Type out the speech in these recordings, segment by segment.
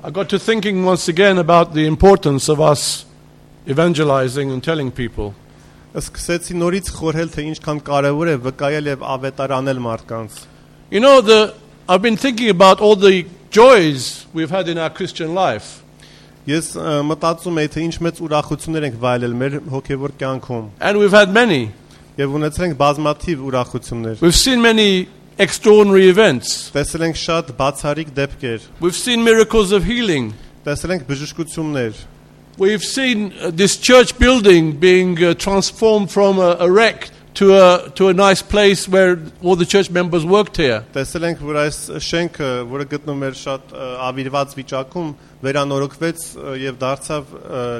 I got to thinking once again about the importance of us evangelizing and telling people. Սկսեցի նորից խորհել թե ինչքան կարևոր է վկայել եւ ավետարանել մարդկանց. You know, I've been thinking about all the joys we've had in our Christian life. Ես մտածում եի թե ինչ մեծ ուրախություններ ենք վայելել մեր հոգեվոր կյանքում. And we've had many. Եվ ունեցել ենք բազմաթիվ ուրախություններ. We've seen many extraordinary events. Տեսել ենք շատ բացառիկ դեպքեր. We've seen miracles of healing. Տեսել ենք բժշկություններ. We've seen this church building being transformed from a wreck to a nice place where all the church members worked here. Տեսել ենք որ այս շենքը, որը գտնվում էր շատ ավիրված վիճակում, վերանորոգվեց եւ դարձավ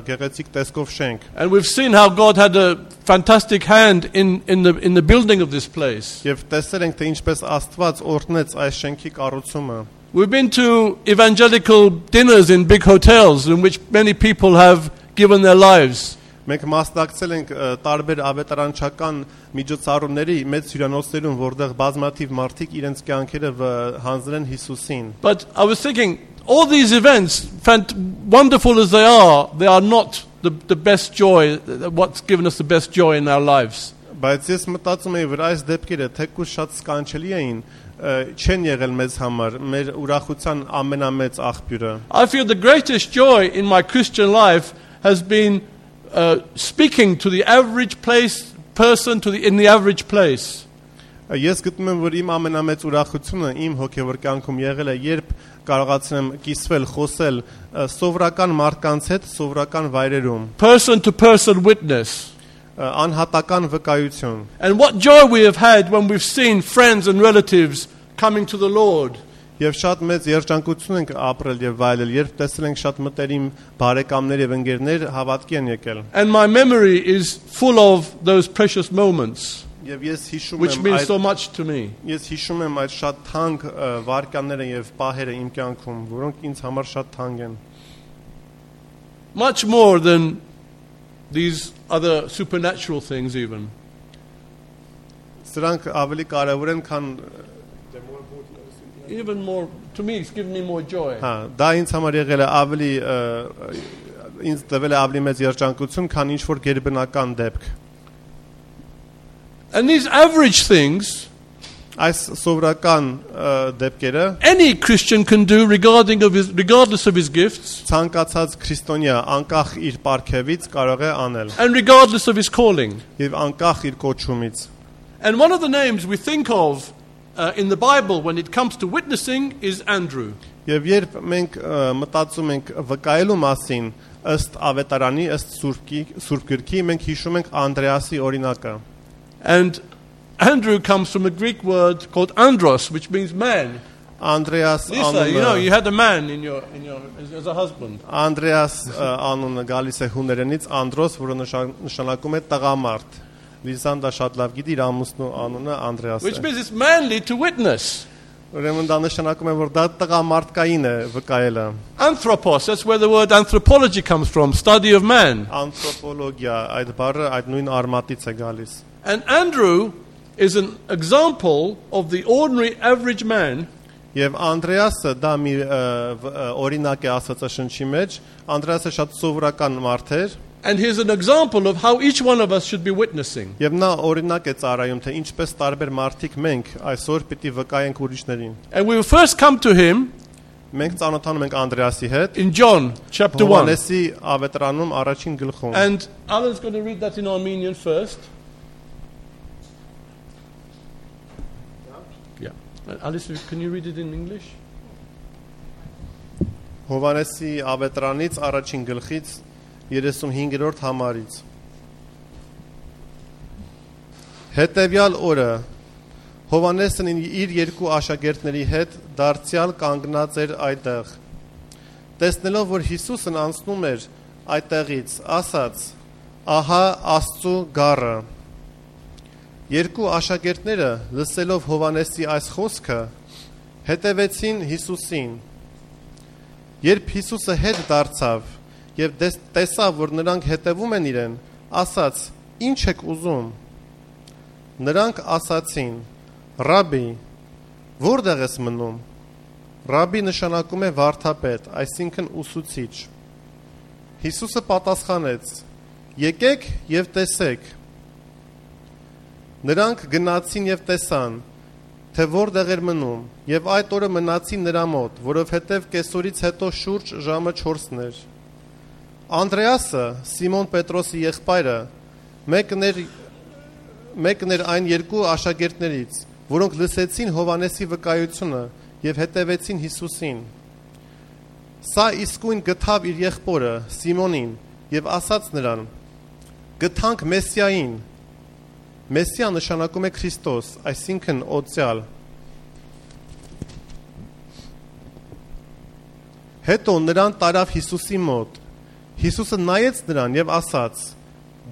գեղեցիկ տեսքով շենք. And we've seen how God had a fantastic hand in the building of this place. Եվ տեսել ենք թե ինչպես Աստված օրհնեց այս շենքի կառուցումը. We've been to evangelical dinners in big hotels in which many people have given their lives. Մենք մասնակցել ենք տարբեր ավետարանչական միջոցառումների մեծ հյուրանոցներում, որտեղ բազմաթիվ մարդիկ իրենց կյանքերը հանձնել են Հիսուսին. But I was thinking, all these events, wonderful as they are not the best joy, what's given us the best joy in our lives. Բայց ես մտածում եմ, որ այս դեպքերը թեկուզ շատ սքանչելի էին, չեն եղել մեզ համար, մեր ուրախության ամենամեծ աղբյուրը. I feel the greatest joy in my Christian life has been speaking to the average person in the average place. Ես գտնում եմ, որ իմ ամենամեծ ուրախությունը իմ հոգևոր կյանքում եղել է, երբ կարողացնեմ կիսվել, խոսել սովորական մարդկանց հետ, սովորական վայրերում. Person to person witness. Անհատական վկայություն. And what joy we have had when we've seen friends and relatives coming to the Lord. Եվ շատ մեծ երջանկություն ենք ապրել եւ վայելել, երբ տեսել ենք շատ մտերիմ բարեկամներ եւ ընկերներ հավատքի են եկել. And my memory is full of those precious moments. Եվ ես հիշում եմ, which means so much to me. Ես հիշում եմ այդ շատ թանկ վարկանները եւ պահերը իմ կյանքում, որոնք ինձ համար շատ թանկ են. Much more than these other supernatural things even. Սրանք ավելի կարևոր են, քան even more to me it's given me more joy. Դա ինձ համար եղել է ավելի ինձ տվել է ավելի մեծ երջանկություն, քան ինչ որ գերբնական դեպք. And these average things, այս սովորական դեպքերը, any Christian can do regardless of his gifts. Ցանկացած քրիստոնյա անկախ իր պարգևից կարող է անել. And regardless of his calling. Եվ անկախ իր կոչումից. And one of the names we think of in the Bible when it comes to witnessing is Andrew. Եվ երբ մենք մտածում ենք վկայելու մասին, ըստ ավետարանի, ըստ Սուրբ Գրքի, մենք հիշում ենք Անդրեասի օրինակը. And Andrew comes from a Greek word called andros, which means man. Andreas Lisa, you know, you had a man in your as a husband. Andreas անունը գալիս է հուներենից Andros, որը նշանակում է տղամարդ. Լիզանդա շատ լավ գիտի իր ամուսնու անունը Անդրեաս է. Which means it's manly to witness. Ուրեմն դա նշանակում է, որ դա տղամարդկային է վկայելը. Anthropos, that's where the word anthropology comes from, study of man. Անթրոպոլոգիա, այդ բառը այդ նույն արմատից է գալիս. And Andrew is an example of the ordinary average man. Եվ Անդրեասը դա մի օրինակ է Աստվածաշնչի մեջ. Անդրեասը շատ սովորական մարդ էր. And here's an example of how each one of us should be witnessing. Եվ նա օրինակ է ծառայում, թե ինչպես տարբեր մարդիկ մենք այսօր պիտի վկայենք ուրիշներին. And we will first come to him. Մենք ծանոթանում ենք Անդրեասի հետ. In John chapter 1. Հովհաննեսի ավետարանում առաջին գլխում. And Alan's going to read that in Armenian first. Yeah. Alice, can you read it in English? Հովհաննեսի ավետարանից առաջին գլխից 35-րդ համարից. Հետևյալ օրը Հովհաննեսն իր երկու աշակերտների հետ դարձյալ կանգնած էր այդտեղ. Տեսնելով, որ Հիսուսն անցնում էր այդտեղից, ասաց. Ահա Աստծու գառը. Երկու աշակերտները լսելով Հովհաննեսի այս խոսքը, հետևեցին Հիսուսին. Երբ Հիսուսը հետ դարձավ եւ տեսավ, որ նրանք հետևում են իրեն, ասաց. Ինչ եք ուզում? Նրանք ասացին. Ռաբի, որտեղ ես մնում? Ռաբի նշանակում է վարդապետ, այսինքն ուսուցիչ։ Հիսուսը պատասխանեց. Եկեք եւ տեսեք։ Նրանք գնացին եւ տեսան, թե որտեղ էր մնում, եւ այդ օրը մնացին նրա մոտ, որովհետեւ կեսօրից հետո շուրջ ժամը 4-ն էր։ Անդրեասը, Սիմոն Պետրոսի եղբայրը, մեկն էր այն երկու աշակերտներից, որոնք լսեցին Հովանեսի վկայությունը եւ հետևեցին Հիսուսին։ Սա իսկույն գտավ իր եղբորը Սիմոնին եւ ասաց նրան. Գտանք Մեսիային։ Մեսիա նշանակում է Քրիստոս, այսինքն օծյալ։ Հետո նրան տարավ Հիսուսի մոտ։ Հիսուսը նայեց նրան եւ ասաց.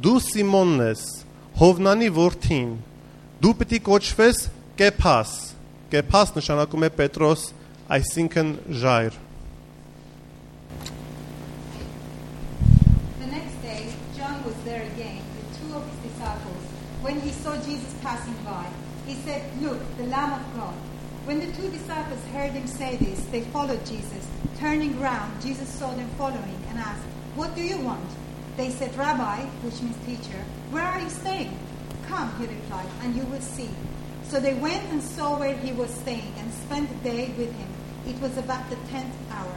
Դու Սիմոնն ես, Հովնանի որդին, դու պիտի կոչվես Կեփաս։ Կեփաս նշանակում է Պետրոս, այսինքն ժայռ։ The next day, John was there again with two of his disciples. When he saw Jesus passing by, he said, Look, the Lamb of God. When the two disciples heard him say this, they followed Jesus. Turning round, Jesus saw them following and asked, What do you want? They said, Rabbi, which means teacher, where are you staying? Come, he replied, and you will see. So they went and saw where he was staying and spent the day with him. It was about the 10th hour.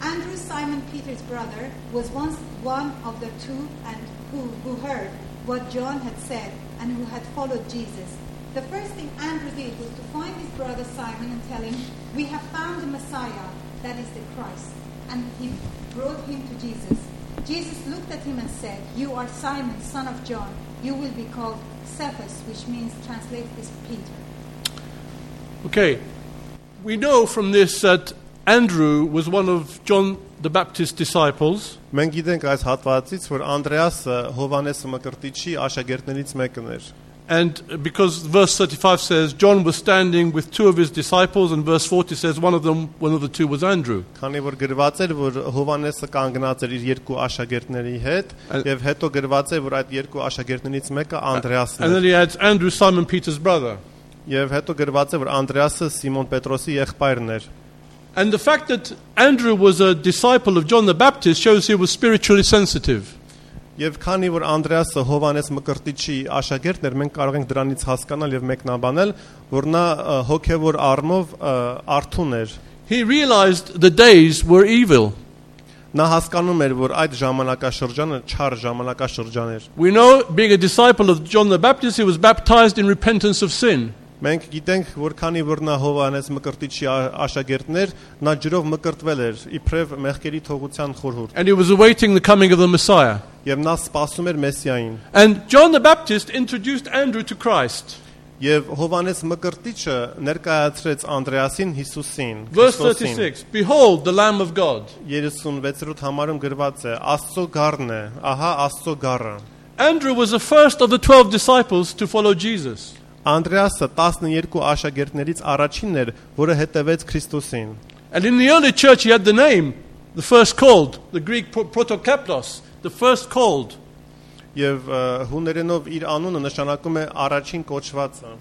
Andrew, Simon Peter's brother, was once one of the two and who heard what John had said and who had followed Jesus. The first thing Andrew did was to find his brother Simon and tell him, We have found the Messiah, that is the Christ. And he brought him to Jesus. Jesus looked at him and said, You are Simon, son of John. You will be called Cephas, which means, translate this, Peter. Okay, we know from this that Andrew was one of John the Baptist's disciples. Մենք գիտենք այս հատվածից, որ Անդրեասը Հովանես Մկրտիչի աշակերտներից մեկն էր։ And because verse 35 says John was standing with two of his disciples, and verse 40 says one of the two was Andrew. Քանի որ գրված էր, որ Հովանեսը կանգնած էր իր երկու աշակերտների հետ, եւ հետո գրված է, որ այդ երկու աշակերտներից մեկը Անդրեասն And էր։ then he adds Andrew, Simon Peter's brother. Եվ հետո գրված է, որ Անդրեասը Սիմոն Պետրոսի եղբայրն էր։ And the fact that Andrew was a disciple of John the Baptist shows he was spiritually sensitive. Եվ քանի որ Անդրեասը Հովանես Մկրտիչի աշակերտն էր, մենք կարող ենք դրանից հասկանալ եւ մեկնաբանել, որ նա հոգեվոր առումով արթուն էր։ He realized the days were evil. Նա հասկանում էր, որ այդ ժամանակաշրջանը չար ժամանակաշրջան էր։ We know, being a disciple of John the Baptist, he was baptized in repentance of sin. Մենք գիտենք, որ քանի որ նա Հովանես Մկրտիչի աշակերտն էր, նա ջրով մկրտվել էր, իբրև մեղքերի թողության խորհուրդ։ And he was awaiting the coming of the Messiah. Եվ նա սպասում էր Մեսիային։ And John the Baptist introduced Andrew to Christ. Եվ Հովանես Մկրտիչը ներկայացրեց Անդրեասին Հիսուսին։ Verse 36, Behold the Lamb of God. 36-րդ համարում գրված է. Աստծո գառն է, ահա Աստծո գառը։ Andrew was the first of the 12 disciples to follow Jesus. Անդրեասը 12 աշակերտներից առաջինն էր, որը հետևեց Քրիստոսին։ And in the early church he had the name, the first called, the Greek protokaplos, the first called. Եվ հուներենով իր անունը նշանակում է առաջին կոչվածը։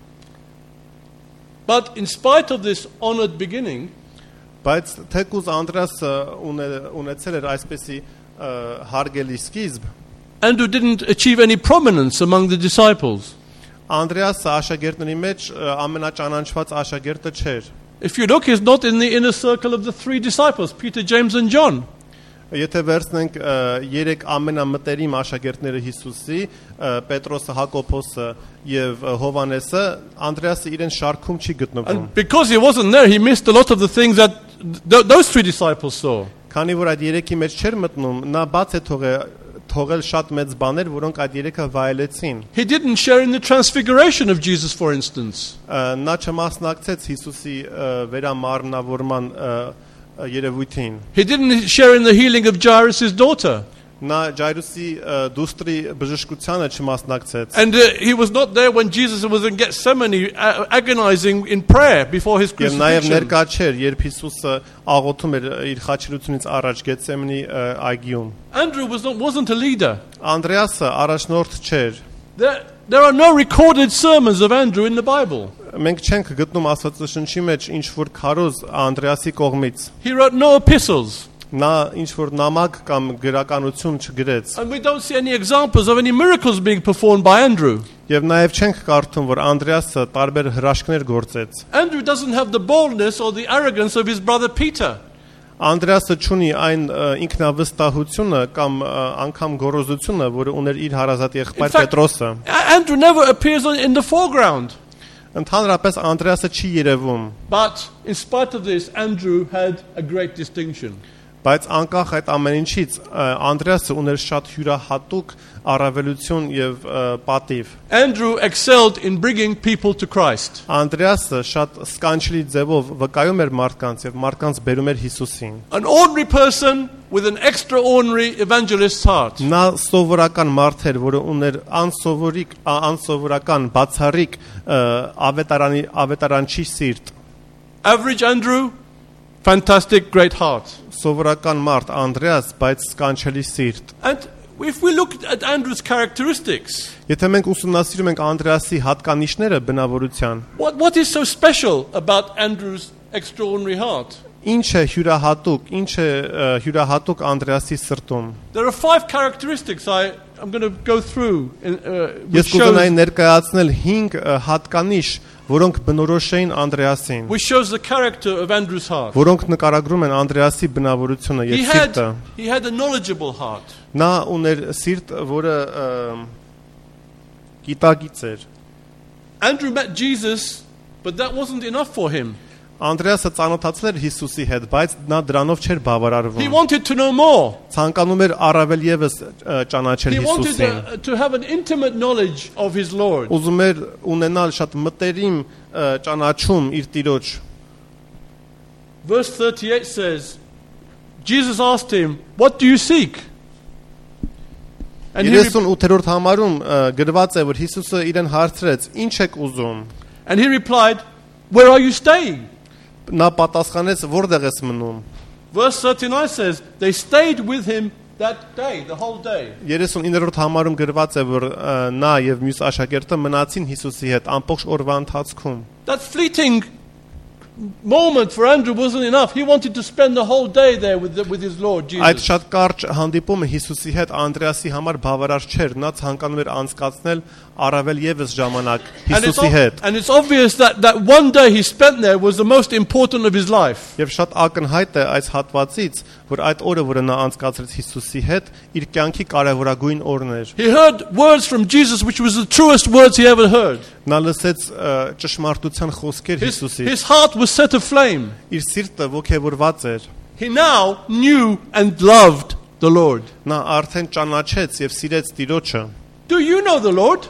But in spite of this honored beginning, բայց թեկուզ Անդրեասը ունեցել էր այսպեսի հարգելի սկիզբ, Andrew didn't achieve any prominence among the disciples. Անդրեասը աշակերտների մեջ ամենաճանաչված աշակերտը չէր։ If you look, he's not in the inner circle of the three disciples, Peter, James and John. Եթե վերցնենք երեք ամենամտերիմ աշակերտները Հիսուսի, Պետրոսը, Հակոբոսը եւ Հովանեսը, Անդրեասը իրեն շարքում չի գտնվում։ And because he wasn't there, he missed a lot of the things that those three disciples saw. Քանի որ այդ երեքի մեջ չէր մտնում, նա բաց է թողել շատ մեծ բաներ, որոնք այդ երեքը վայելեցին։ He didn't share in the transfiguration of Jesus, for instance. Նա չմասնակցեց Հիսուսի վերամարմնավորման երևույթին։ He didn't share in the healing of Jairus' daughter. Նա Ջայրուսի դուստրի բժշկությանը չմասնակցեց։ And he was not there when Jesus was in Gethsemane agonizing in prayer before his Եվ նաև crucifixion. ներկա չէր, երբ Հիսուսը աղոթում էր իր խաչելությունից առաջ Գեթսեմանի այգիում։ Andrew wasn't a leader. Անդրեասը առաջնորդ չէր։ There are no recorded sermons of Andrew in the Bible. մենք չենք գտնում Աստվածաշնչի մեջ ինչ որ քարոզ Անդրեասի կողմից։ He wrote no epistles. Նա ինչ որ նամակ կամ գրականություն չգրեց։ And we don't see any examples of any miracles being performed by Andrew. Եվ նաև չենք կարդում, որ Անդրեասը տարբեր հրաշքներ գործեց։ Andrew doesn't have the boldness or the arrogance of his brother Peter. Անդրեասը չունի այն ինքնավստահությունը կամ անգամ գոռոզությունը, որը ուներ իր հարազատ եղբայր Պետրոսը։ Andrew never appears in the foreground. Ընդհանրապես Անդրեասը չի երևում, But in spite of this, Andrew had a great distinction. բայց անկախ այդ ամեն ինչից Անդրեասը ուներ շատ հյուրահատուկ առավելություն եւ պատիվ։ Andrew excelled in bringing people to Christ. Անդրեասը շատ սկանչելի ձևով վկայում էր մարդկանց եւ մարդկանց բերում էր Հիսուսին։ An ordinary person with an extraordinary evangelist's heart. Նա սովորական մարդ էր, որը ուներ անսովորական բացառիկ ավետարանչի սիրտ։ Average Andrew, fantastic, great heart. Սովորական մարդ Անդրեաս, բայց սկանչելի սիրտ։ And if we look at Andrew's characteristics, Եթե մենք ուսումնասիրում ենք Անդրեասի հատկանիշները բնավորության, what is so special about Andrew's extraordinary heart? ինչ է հյուրահատուկ Անդրեասի սրտում։ There are 5 characteristics I'm going to go through. Ես կուզենայի ներկայացնել 5 հատկանիշ, որոնք բնորոշ էին Անդրեասին, which shows the character of Andrew's heart. որոնք նկարագրում են Անդրեասի բնավորությունը եւ սիրտը։ He had a knowledgeable heart. Նա ուներ սիրտ, որը գիտակից էր։ Andrew met Jesus, but that wasn't enough for him. Անդրեասը ծանոթացել էր Հիսուսի հետ, բայց նա դրանով չէր He բավարարվում։ wanted to know more. Ցանկանում էր առավել եւս ճանաչել He Հիսուսին։ wanted to have an intimate knowledge of his Lord. Ուզում էր ունենալ շատ մտերիմ ճանաչում իր Տիրոջ։ Verse 38 says, Jesus asked him, "What do you seek?" And he 38-րդ համարում գրված է, որ Հիսուսը իրեն հարցրեց. «Ինչ եք ուզում»։ replied, "Where are you staying?" Նա պատասխանեց. «Որտեղ ես մնում»։ Verse 39 says, they stayed with him that day, the whole day. 39-րդ համարում գրված է, որ նա եւ մյուս աշակերտը մնացին Հիսուսի հետ ամբողջ օրվա ընթացքում։ That fleeting moment for Andrew wasn't enough. He wanted to spend the whole day there with his Lord Այդ Jesus. շատ կարճ հանդիպումը Հիսուսի հետ Անդրեասի համար բավարար չէր, նա ցանկանում էր անցկացնել առավել եւս ժամանակ Հիսուսի հետ։ And it's obvious that one day he spent there was the most important of his life. Եվ շատ ակնհայտ է այս հատվածից, որ այդ օրը, որը նա անցկացրեց Հիսուսի հետ, իր կյանքի կարևորագույն օրն էր։ He heard words from Jesus which was the truest words he ever heard. Նա լսեց ճշմարտության խոսքեր Հիսուսից։ His heart was set aflame. Իր սիրտը ոգևորված էր։ He now knew and loved the Lord. Նա արդեն ճանաչեց եւ սիրեց Տիրոջը։ Do you know the Lord?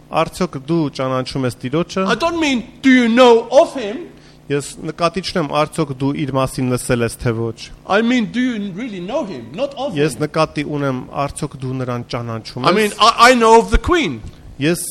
Արդյոք դու ճանաչում ես Տիրոջը։ I don't mean do you know of him? Ես նկատի չունեմ արդյոք դու իր մասին լսել ես թե ոչ։ I mean do you really know him, not of Ես him? նկատի ունեմ արդյոք դու նրան ճանաչում I mean ես։ I know of the queen. Ես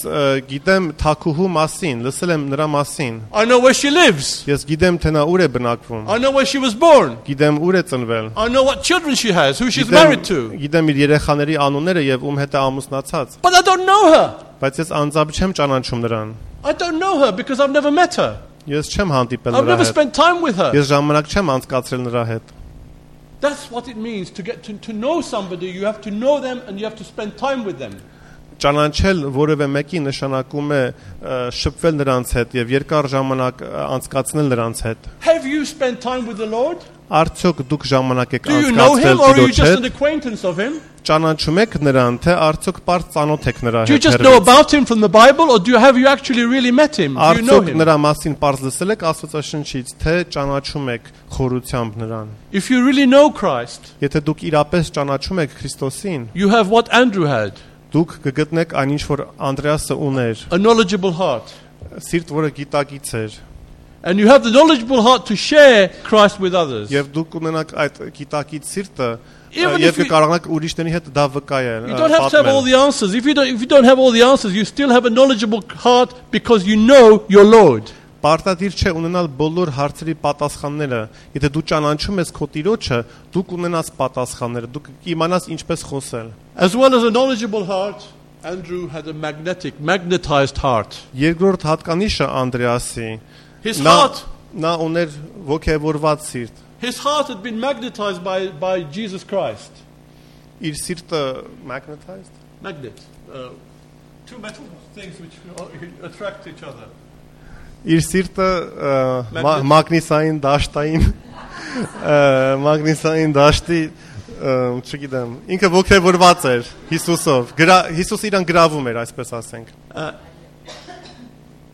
գիտեմ Թաքուհու մասին, լսել եմ նրա մասին։ I know where she lives. Ես գիտեմ թե նա ուր է բնակվում։ I know where she was born. Գիտեմ ուր է ծնվել։ I know what children she has, who she's married to. Գիտեմ իր երեխաների անունները եւ ում հետ է ամուսնացած։ But I don't know her. Բայց ես անձամբ չեմ ճանաչում նրան։ I don't know her because I've never met her. Ես չեմ հանդիպել I've նրա never հետ։ spent time with her. Ես ժամանակ չեմ անցկացրել նրա հետ։ That's what it means to get to know somebody. You have to know them and you have to spend time with them. Ճանաչել որևէ մեկի նշանակում է շփվել նրանց հետ եւ երկար ժամանակ անցկացնել նրանց հետ։ Have you spent time with the Lord? Արդյոք դուք ժամանակ եք Do you know անցկացրել him or are you Տիրոջ just an հետ։ acquaintance of him? Ճանաչում եք նրան, թե արդյոք պարզ ծանոթ եք նրա Do you հետ։ just know about him from the Bible or have you actually really met him? Do you know Արդյոք him? նրա մասին պարզ լսել եք Աստվածաշնչից, թե ճանաչում եք խորությամբ նրան։ If you really know Christ, Եթե դուք իրապես ճանաչում եք Քրիստոսին, you have what Andrew had, դուք կգտնեք այնինչ որ Անդրեասը ուներ, a knowledgeable heart. սիրտ, որը գիտակից էր, And you have the knowledgeable heart to share Christ with others. եւ դուք ունենաք այդ գիտակից սիրտը Even եւ if you- կկարողանաք ուրիշների հետ դա վկայել։ You don't have to have all the answers. If you don't have all the answers, you still have a knowledgeable heart because you know your Lord. Պարտադիր չէ ունենալ բոլոր հարցերի պատասխանները։ Եթե դու ճանաչում ես քո Տիրոջը, դու կունենաս պատասխանները, դու կիմանաս ինչպես խոսել։ As well as a knowledgeable heart, Andrew had a magnetized heart. Երկրորդ հատկանիշը Անդրեասի His heart նա ուներ ոգևորված սիրտ His heart had been magnetized by Jesus Christ. իր սիրտը magnetized Magnet. Two metal things which attract each other. իր սիրտը մագնիսային դաշտի չգիտեմ ինքը ոգևորված էր Հիսուսով Հիսուս իրան գրավում էր այսպես ասենք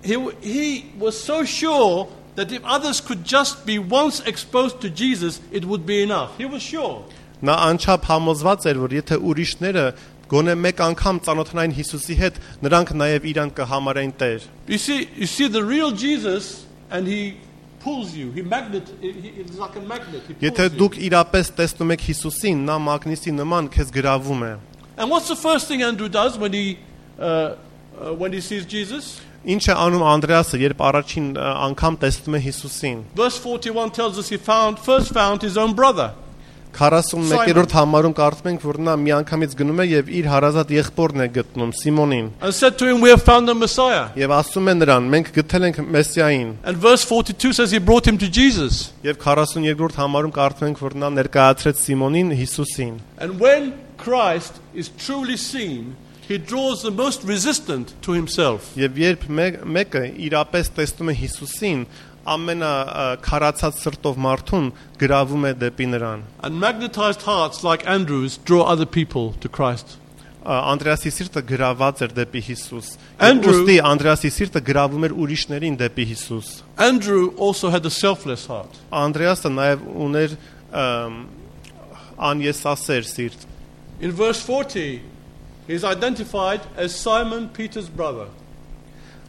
He was so sure that if others could just be once exposed to Jesus, it would be enough. He was sure. նա անչափ համոզված էր որ եթե ուրիշները գոնե մեկ անգամ ծանոթանային Հիսուսի հետ նրանք նաև իրան կհամարեն Տեր You see the real Jesus and he pulls you. It's like a magnet. He pulls եթե you. դուք իրապես տեսնում եք Հիսուսին նա մագնիսի նման քեզ գրավում է And what's the first thing Andrew does when he sees Jesus? Ինչ է անում Անդրեասը երբ առաջին անգամ տեսնում է Հիսուսին Verse 41 tells us he first found his own brother. 41-րդ համարում կարդում ենք որ նա միանգամից գնում է եւ իր հարազատ եղբորն է գտնում Սիմոնին And said to him, we have found the Messiah. եւ ասում է նրան մենք գտել ենք Մեսիային And verse 42 says he brought him to Jesus. եւ 42-րդ համարում կարդում ենք որ նա ներկայացրեց Սիմոնին Հիսուսին And when Christ is truly seen, he draws the most resistant to himself. եւ երբ մեկը իրապես տեսնում է Հիսուսին ամենաքարացած սրտով մարդուն գրավում է դեպի նրան And magnetized hearts like Andrew's draw other people to Christ. Անդրեասի սիրտը գրաված էր դեպի Հիսուս Andrew- Ոստի Անդրեասի սիրտը գրավում էր ուրիշներին դեպի Հիսուս Andrew also had a selfless heart. Անդրեասը նաև ուներ անեսասեր սիրտ In verse 40, he is identified as Simon Peter's brother.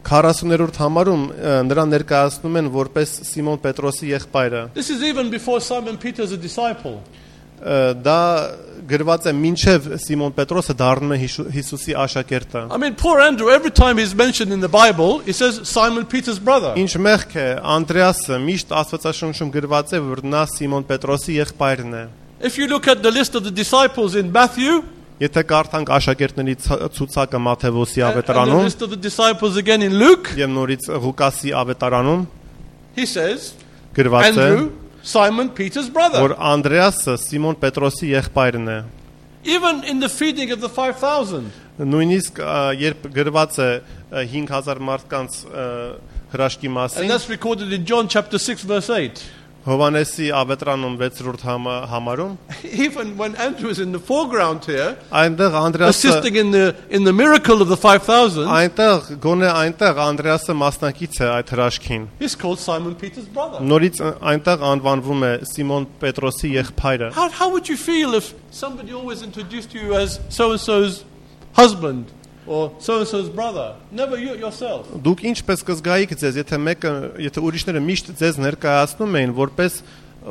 40-րդ համարում նրան ներկայացնում են որպես Սիմոն Պետրոսի եղբայրը This is even before Simon Peter is a disciple. դա գրված է մինչև Սիմոն Պետրոսը դառնում է Հիսուսի աշակերտը I mean, poor Andrew, every time he's mentioned in the Bible, it says Simon Peter's brother. Ինչ մեղք է Անդրեասը միշտ Աստվածաշնչում գրված է որ նա Սիմոն Պետրոսի եղբայրն է If you look at the list of the disciples in Matthew, Եթե կարդանք աշակերտների ցուցակը Մատթեոսի and the ավետարանում list of the disciples again in Luke, եւ նորից Ղուկասի ավետարանում he says, գրված է Andrew, Simon Peter's brother. որ Անդրեասը Սիմոն Պետրոսի եղբայրն է Even in the feeding of the 5,000, նույնիսկ երբ գրված է 5000 մարդկանց հրաշքի and մասին that's recorded in John chapter 6, verse 8. Հովանեսի ավետարանում 6-րդ համարում Even when Andrew is in the foreground here, այնտեղ Անդրեասը assisting in the miracle of the 5,000, այնտեղ գոնե այնտեղ Անդրեասը մասնակից է այդ հրաշքին he's called Simon Peter's brother. նորից այնտեղ անվանվում է Սիմոն Պետրոսի եղբայրը How would you feel if somebody always introduced you as so-and-so's husband or so-and-so's brother? Never you yourself. Դուք ինչպես կզգայիք ձեզ եթե ուրիշները միշտ ձեզ ներկայացնում էին որպես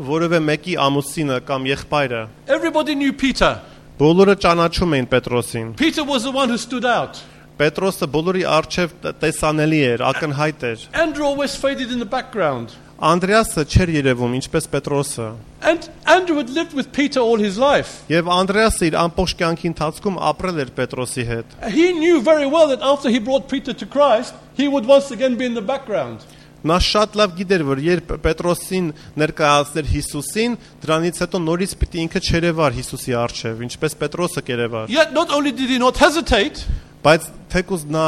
որևէ մեկի ամուսինը կամ եղբայրը Everybody knew Peter. բոլորը ճանաչում էին Պետրոսին Peter was the one who stood out. Պետրոսը բոլորի առջև տեսանելի էր ակնհայտ էր Andrew always faded in the background. Անդրեասը չէր երևում ինչպես Պետրոսը And Andrew had lived with Peter all his life. եւ Անդրեասը իր ամբողջ կյանքի ընթացքում ապրել էր Պետրոսի հետ He knew very well that after he brought Peter to Christ, he would once again be in the background. նա շատ լավ գիտեր որ երբ Պետրոսին ներկայացներ Հիսուսին դրանից հետո նորից պիտի ինքը չերևար Հիսուսի առջև ինչպես Պետրոսը կերևար Yet not only did he not hesitate, բայց թեկուզ նա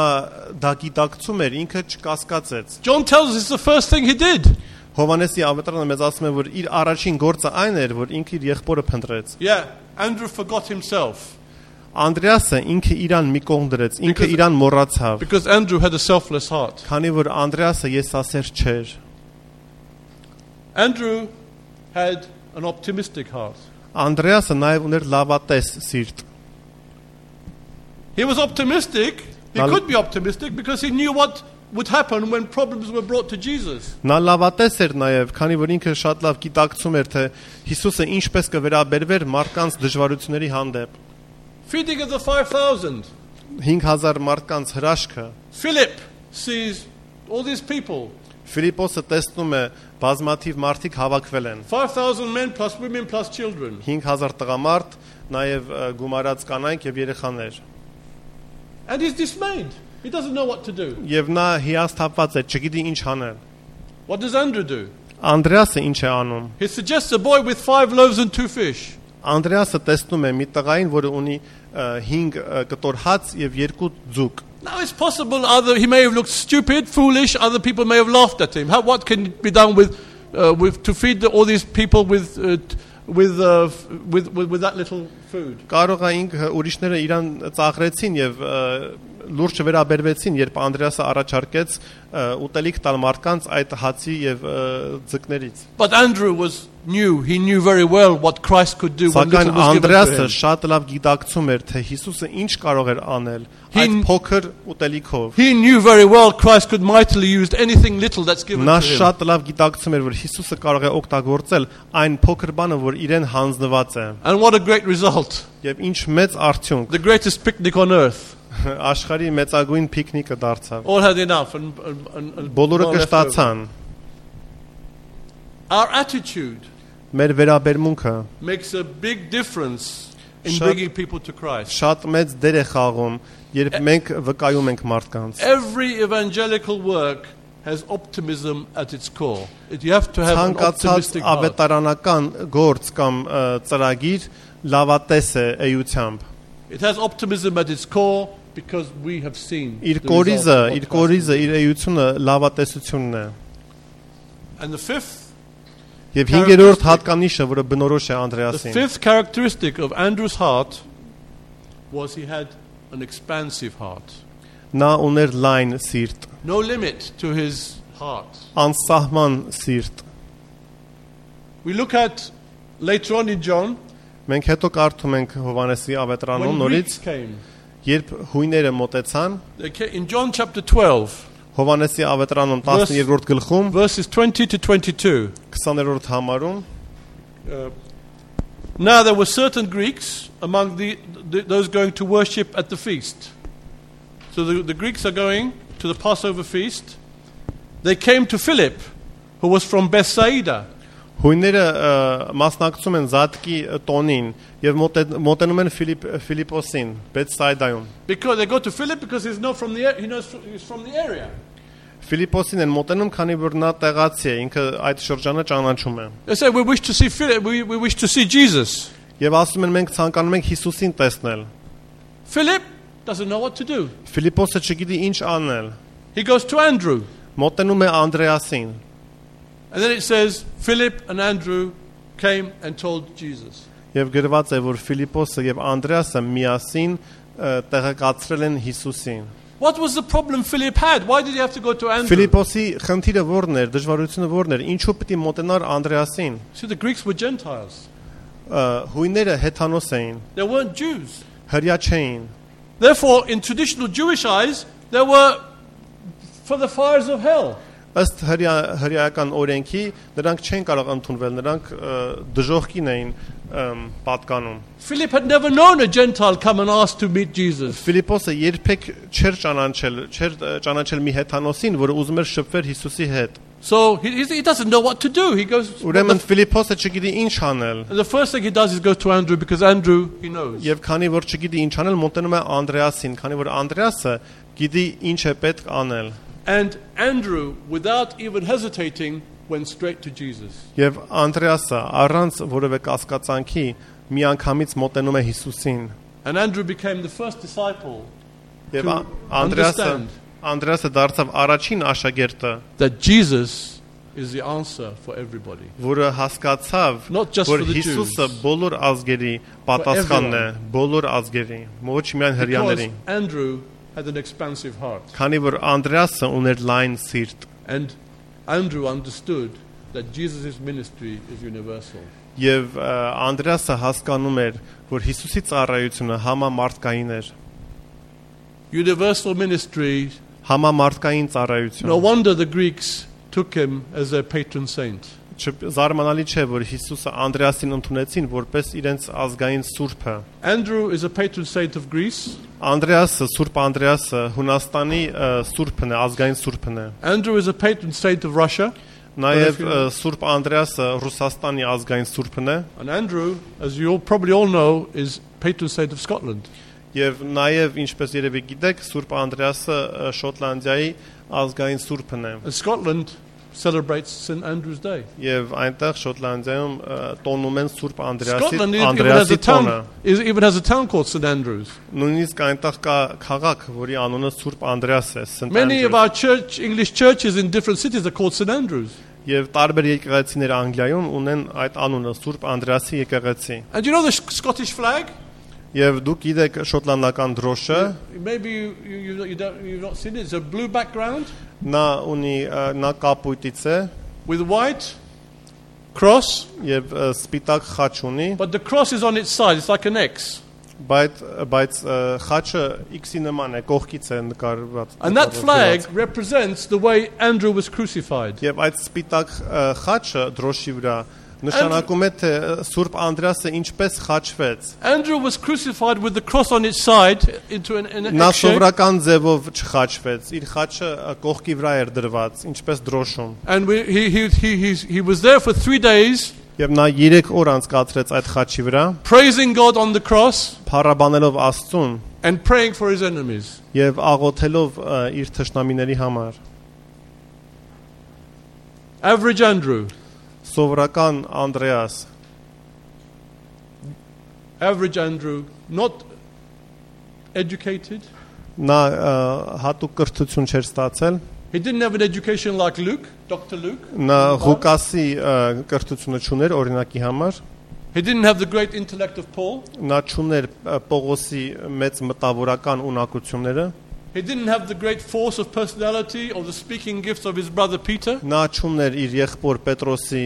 դա գիտակցում էր ինքը չկասկածեց John tells us it's the first thing he did. Հովանեսի ավետարանը մեզ ասում է որ իր առաջին գործը այն էր որ ինքը իր եղբորը փնտրեց Yeah, Andrew forgot himself Անդրեասը ինքը իրան մի կողմ դրեց ինքը իրան մոռացավ because Andrew had a selfless heart. քանի որ Անդրեասը եսասեր չէր Andrew had an optimistic heart. Անդրեասը նաև ուներ լավատես սիրտ He was optimistic. He Now- could be optimistic because he knew what would happen when problems were brought to Jesus. Նա լավատես էր նաև, քանի որ ինքը շատ լավ գիտակցում էր, թե Հիսուսը ինչպես կվերաբերվեր մարդկանց դժվարությունների հանդեպ։ Feeding of the 5,000. 5000 մարդկանց հրաշքը։ Philip sees all these people. Ֆիլիպոսը տեսնում է բազմաթիվ մարդիկ հավաքվել են։ 5,000 men plus women plus children. 5000 տղամարդ, նաև գումարած կանայք եւ երեխաներ։ And he's dismayed. He doesn't know what to do. Եվ նա հիասթափված է, չգիտի ինչ անել։ What does Andrew do? Անդրեասը ինչ է անում։ He suggests a boy with 5 loaves and 2 fish. Անդրեասը տեսնում է մի տղային, որը ունի 5 կտոր հաց եւ 2 ձուկ։ Now it's possible either he may have looked stupid, foolish, other people may have laughed at him. What can be done with to feed all these people with that little food? Կարող է ինքը ուրիշները իրան ծաղրեցին եւ լուրջ վերաբերվեցին, երբ Անդրեասը առաջարկեց ուտելիք տալ մարդկանց այդ հացի եւ ձկներից։ But Andrew he knew very well what Christ could do when little was given to Անդրեասը him. շատ լավ գիտակցում էր, թե Հիսուսը ինչ կարող էր անել այդ փոքր ուտելիքով։ He knew very well Christ could mightily use anything little that's given Նա to him. շատ լավ գիտակցում էր, որ Հիսուսը կարող է օգտագործել այն փոքր բանը, որ իրեն հանձնված է։ And what a great result. Եվ ինչ մեծ արդյունք։ The greatest picnic on earth. Աշխարհի մեծագույն պիկնիկը դարձավ։ All had enough and Բոլորը more left over. կշտացան։ Our attitude Մեր վերաբերմունքը makes a big difference in Շատ- bringing people to Christ. շատ մեծ դեր է խաղում, երբ մենք վկայում ենք մարդկանց։ Every evangelical work has optimism at its core. You have to have an Ցանկացած optimistic heart. ավետարանական գործ կամ ծրագիր լավատես է էությամբ։ It has optimism at its core because we have seen Իր the կորիզը, result of իր what Christ կորիզը, did. իր էությունը լավատեսությունն է։ And the fifth Եվ 5-րդ հատկանիշը, որը բնորոշ է Անդրեասին, characteristic of Andrew's heart was he had an expansive heart. նա ուներ լայն սիրտ, No limit to his heart. անսահման սիրտ։ We look at later on in John Մենք հետո կարդում ենք Հովանեսի ավետարանում when նորից, Greeks came. երբ հույները մոտեցան, In John chapter 12, Հովանեսի ավետարանում 12-րդ գլխում, verses 20 to 22. 20-րդ համարում, Now there were certain Greeks among those going to worship at the feast. So the Greeks are going to the Passover feast. They came to Philip, who was from Bethsaida. հույները մասնակցում են Զատկի տոնին եւ մոտենում են Ֆիլիպոսին, Բեթսայդայում։ Because they go to Philip because he's from the area. Ֆիլիպոսին են մոտենում, քանի որ նա տեղացի է, ինքը այդ շրջանը ճանաչում է։ They say, we wish to see Philip, we wish to see Jesus. Եվ ասում են մենք ցանկանում ենք Հիսուսին տեսնել։ Philip doesn't know what to do. Ֆիլիպոսը չգիտի ինչ անել։ He goes to Andrew. Մոտենում է Անդրեասին։ And then it says, Philip and Andrew came and told Jesus. Եվ գրված է, որ Ֆիլիպոսը եւ Անդրեասը միասին տեղեկացրել են Հիսուսին։ What was the problem Philip had? Why did he have to go to Andrew? Ֆիլիպոսի խնդիրը ո՞րն էր, դժվարությունը ո՞րն էր, ինչու պիտի մոտենար Անդրեասին։ See, the Greeks were Gentiles. Հույները հեթանոս էին, They weren't Jews. հրյա չէին։ Therefore, in traditional Jewish eyes, they were for the fires of hell. Ըստ հրյայական օրենքի նրանք չեն կարող ընդունվել, նրանք դժոխքին էին պատկանում։ Philip had never known a Gentile come and ask to meet Jesus. Ֆիլիպոսը երբեք չէր ճանաչել մի հեթանոսին, որը ուզում էր շփվել Հիսուսի հետ։ So he doesn't know what to do. He goes. Ուրեմն Ֆիլիպոսը չգիտի ինչ անել։ The first thing he does is go to Andrew because Andrew he knows. Եվ քանի որ չգիտի ինչ անել, մոտենում է Անդրեասին, քանի որ Անդրեասը գիտի ինչ է պետք անել։ And Andrew, without even hesitating, went straight to Jesus. Եվ Անդրեասը առանց որևէ կասկածանքի միանգամից մոտենում է Հիսուսին։ And Andrew became the first disciple Եվ to Անդրեասը դարձավ առաջին աշակերտը, that Jesus is the answer for everybody. որը հասկացավ, Not just որ for the Հիսուսը Jews. բոլոր ազգերի պատասխանն է, բոլոր ազգերի, ոչ միայն Because հրեաների։ Andrew had an expansive heart. Քանի որ Անդրեասը ուներ լայն սիրտ, And Andrew understood that Jesus' ministry is universal. եւ Անդրեասը հասկանում էր, որ Հիսուսի ծառայությունը համամարտկային էր, Universal ministry. համամարտկային No ծառայություն։ wonder the Greeks took him as their patron saint. Զարմանալի չէ, որ Հիսուսը Անդրեասին ընդունեցին որպես իրենց ազգային սուրբը։ Andrew is a patron saint of Greece. Անդրեասը, Սուրբ Անդրեասը Հունաստանի սուրբն է, ազգային սուրբն է։ Andrew is a patron saint of Russia. Նաև Սուրբ Անդրեասը Ռուսաստանի ազգային սուրբն է։ And Andrew, as you probably all know, is patron saint of Scotland. Եվ նաև ինչպես երևի գիտեք, Սուրբ Անդրեասը Շոտլանդիայի ազգային սուրբն է։ And Scotland celebrates St. Andrew's Day. Եվ այնտեղ Շոտլանդիայում տոնում են Սուրբ Scotland Անդրեասի տոնը։ even has a town called St. Andrews. Նույնիսկ այնտեղ կա քաղաք, որի անունը Սուրբ Անդրեաս է, St. Many of Andrews։ our English churches in different cities are called St. Andrews. Եվ տարբեր եկեղեցիներ Անգլիայում ունեն այդ անունը Սուրբ Անդրեասի եկեղեցի։ And you know the Scottish flag? Եվ դուք գիտեք շոտլանդական դրոշը, Maybe you've not seen it. It's a blue background նա կապույտից է with white cross, եւ սպիտակ խաչ ունի, but the cross is on its side. It's like an X. բայց խաչը X-ի նման է, կողքից է նկարված։ And that flag represents the way Andrew was crucified. Եվ այդ սպիտակ խաչը դրոշի վրա նշանակում է թե Սուրբ Անդրեասը ինչպես խաչվեց։ Andrew was crucified with the cross on its side into an Նա X shape. սովորական ձևով չխաչվեց, իր խաչը կողքի վրա էր դրված, ինչպես դրոշում։ And he was there for 3 days Եվ նա 3 օր անցկացրեց այդ խաչի վրա, praising God on the cross փառաբանելով Աստծուն and praying for his enemies. եւ աղոթելով իր թշնամիների համար։ Average Andrew. Սովորական Անդրեաս, Average Andrew, not educated. նա հատուկ կրթություն չէր ստացել, He didn't have an education like Luke, Dr. Luke. նա Ղուկասի կրթությունը չուներ օրինակի համար, He didn't have the great intellect of Paul. նա չուներ Պողոսի մեծ մտավորական ունակությունները, He didn't have the great force of personality or the speaking gifts of his brother Peter. նա չուներ իր եղբոր Պետրոսի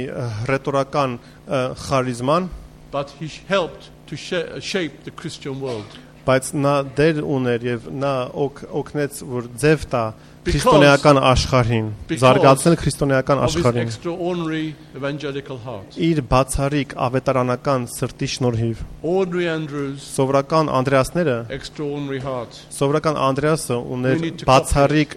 ռետորական խարիզման, But he helped to shape the Christian world. բայց նա դեր ուներ եւ նա օգնեց որ ձև տա քրիստոնեական աշխարհին, զարգացնել քրիստոնեական Of his աշխարհին extraordinary evangelical heart. իր բացառիկ ավետարանական սրտի շնորհիվ։ Ordinary Andrews, Սովորական Անդրեասները, extraordinary heart. սովորական Անդրեասը We ուներ need to բացառիկ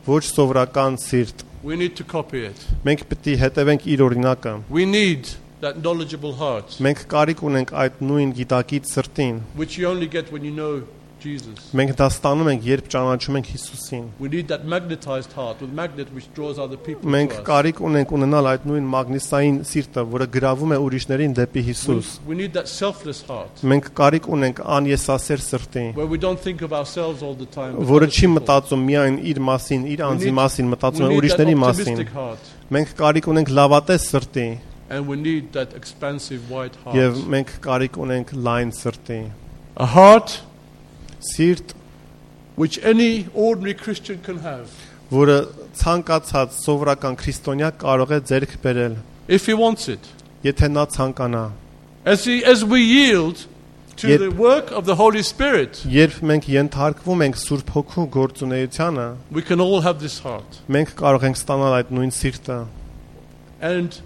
ոչ սովորական սիրտ։ We need to copy it. Մենք պետք է հետևենք իր օրինակը։ We need that knowledgeable heart, Մենք կարիք ունենք այդ նույն գիտակից սրտին։ which you only get when you know Jesus. Մենք դա ստանում ենք, երբ ճանաչում ենք Հիսուսին։ We need that magnetized heart with magnet which draws other people Մենք to us. կարիք ունենք ունենալ այդ նույն մագնիսային սիրտը, որը գրավում է ուրիշներին դեպի Հիսուս։ We need that selfless heart Մենք կարիք ունենք անեսասեր սրտի, where we don't think of ourselves all the time. but որը other չի people. մտածում միայն իր մասին, իր անձի մասին, մտածում է We need that ուրիշների մասին։ optimistic heart, Մենք կարիք ունենք լավատես սրտի and we need that expansive wide եւ heart. մենք կարիք ունենք լայն սրտի։ A heart Սիրտ, which any ordinary Christian can have որը ցանկացած սովորական քրիստոնյա կարող է ձեռք բերել, if he wants it. եթե նա ցանկանա։ As we yield to Yet- the work of the Holy Spirit, Երբ մենք ենթարկվում ենք Սուրբ Հոգու գործունեությանը, we can all have this heart մենք կարող ենք ստանալ այդ նույն սիրտը and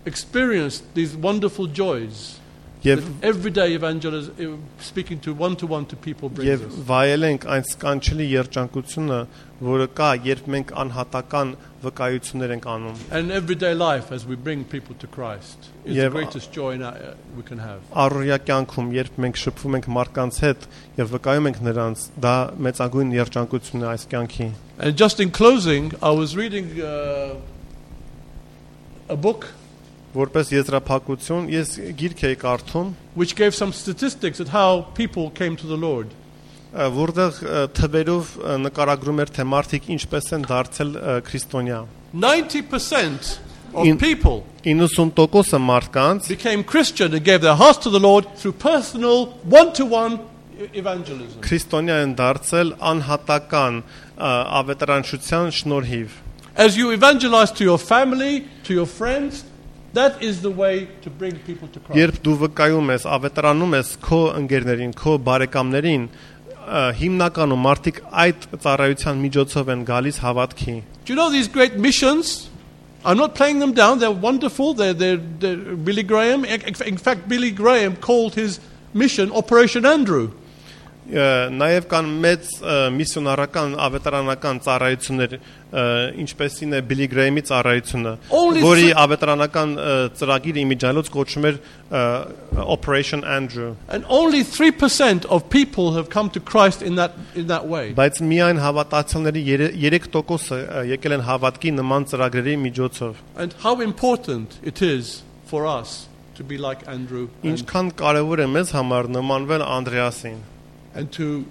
experience these wonderful joys եւ that everyday evangelism, speaking to one to people brings եւ us. վայելենք այն սկանչելի երջանկությունը, որը կա, երբ մենք անհատական վկայություններ ենք անում։ And everyday life as we bring people to Christ is the Եվ- greatest joy we can have. Առօրյա կյանքում, երբ մենք շփվում ենք մարդկանց հետ եւ վկայում ենք նրանց, դա մեծագույն երջանկությունն է այս կյանքի։ And just in closing, I was reading a book Որպես եզրափակություն, ես գիրք էի կարդում, which gave some statistics at how people came to the Lord. որտեղ թվերով նկարագրում էր, թե մարդիկ ինչպես են դարձել քրիստոնյա։ 90% of In- people 90% մարդկանց became Christian and gave their hearts to the Lord through personal, one-to-one evangelism. քրիստոնյա են դարձել անհատական ավետարանչության շնորհիվ։ As you evangelize to your family, to your friends, that is the way to bring people to Christ. Երբ դու վկայում ես, ավետարանում ես քո ընկերներին, քո բարեկամներին, հիմնականում մարդիկ այդ ծառայության միջոցով են գալիս հավատքի։ Do you know these great missions? I'm not playing them down. They're wonderful. They're Billy Graham. In fact, Billy Graham called his mission Operation Andrew. Նաև կան մեծ միսիոնարական ավետարանական ծառայություններ, ինչպեսին է Billy Graham-ի ծառայությունը, որի ավետարանական ծրագիրը իմիջիալոց կոչվում էր Operation Andrew. And only 3% of people have come to Christ in that way. Բայց միայն հավատացյալների 3%-ը եկել են հավատքի նման ծրագրերի միջոցով. And how important it is for us to be like Andrew Ինչքան կարևոր է մեզ համար նմանվել Անդրեասին and to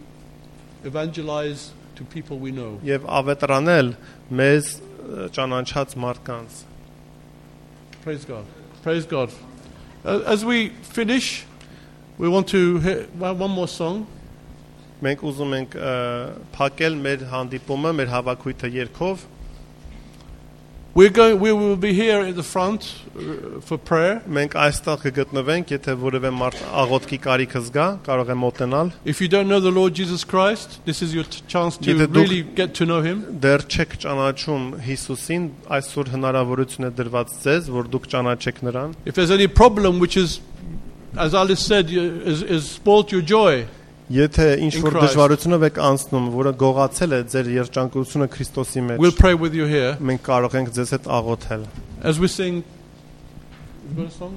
evangelize to people we know. եւ ավետարանել մեզ ճանաչած մարդկանց. Praise God. Praise God. As we finish, we want to hear one more song. Մենք ուզում ենք փակել մեր հանդիպումը, մեր հավաքույթը երգով. We will be here at the front for prayer. Մենք այստեղ կգտնվենք, եթե որևէ մարդ աղոթքի կարիք զգա, կարող է մոտենալ. If you don't know the Lord Jesus Christ, this is your chance to really get to know him. Դեռ չեք ճանաչում Հիսուսին, այսօր հնարավորություն է դրված ձեզ, որ դուք ճանաչեք նրան. If there's any problem which is, as Alice said, is spoiled your joy. Եթե ինչ որ դժվարությունով եք անցնում, որը գողացել է ձեր երջանկությունը Քրիստոսի մեջ, we'll pray with you here. Մենք կարող ենք ձեզ հետ աղոթել. As we sing, you got a song?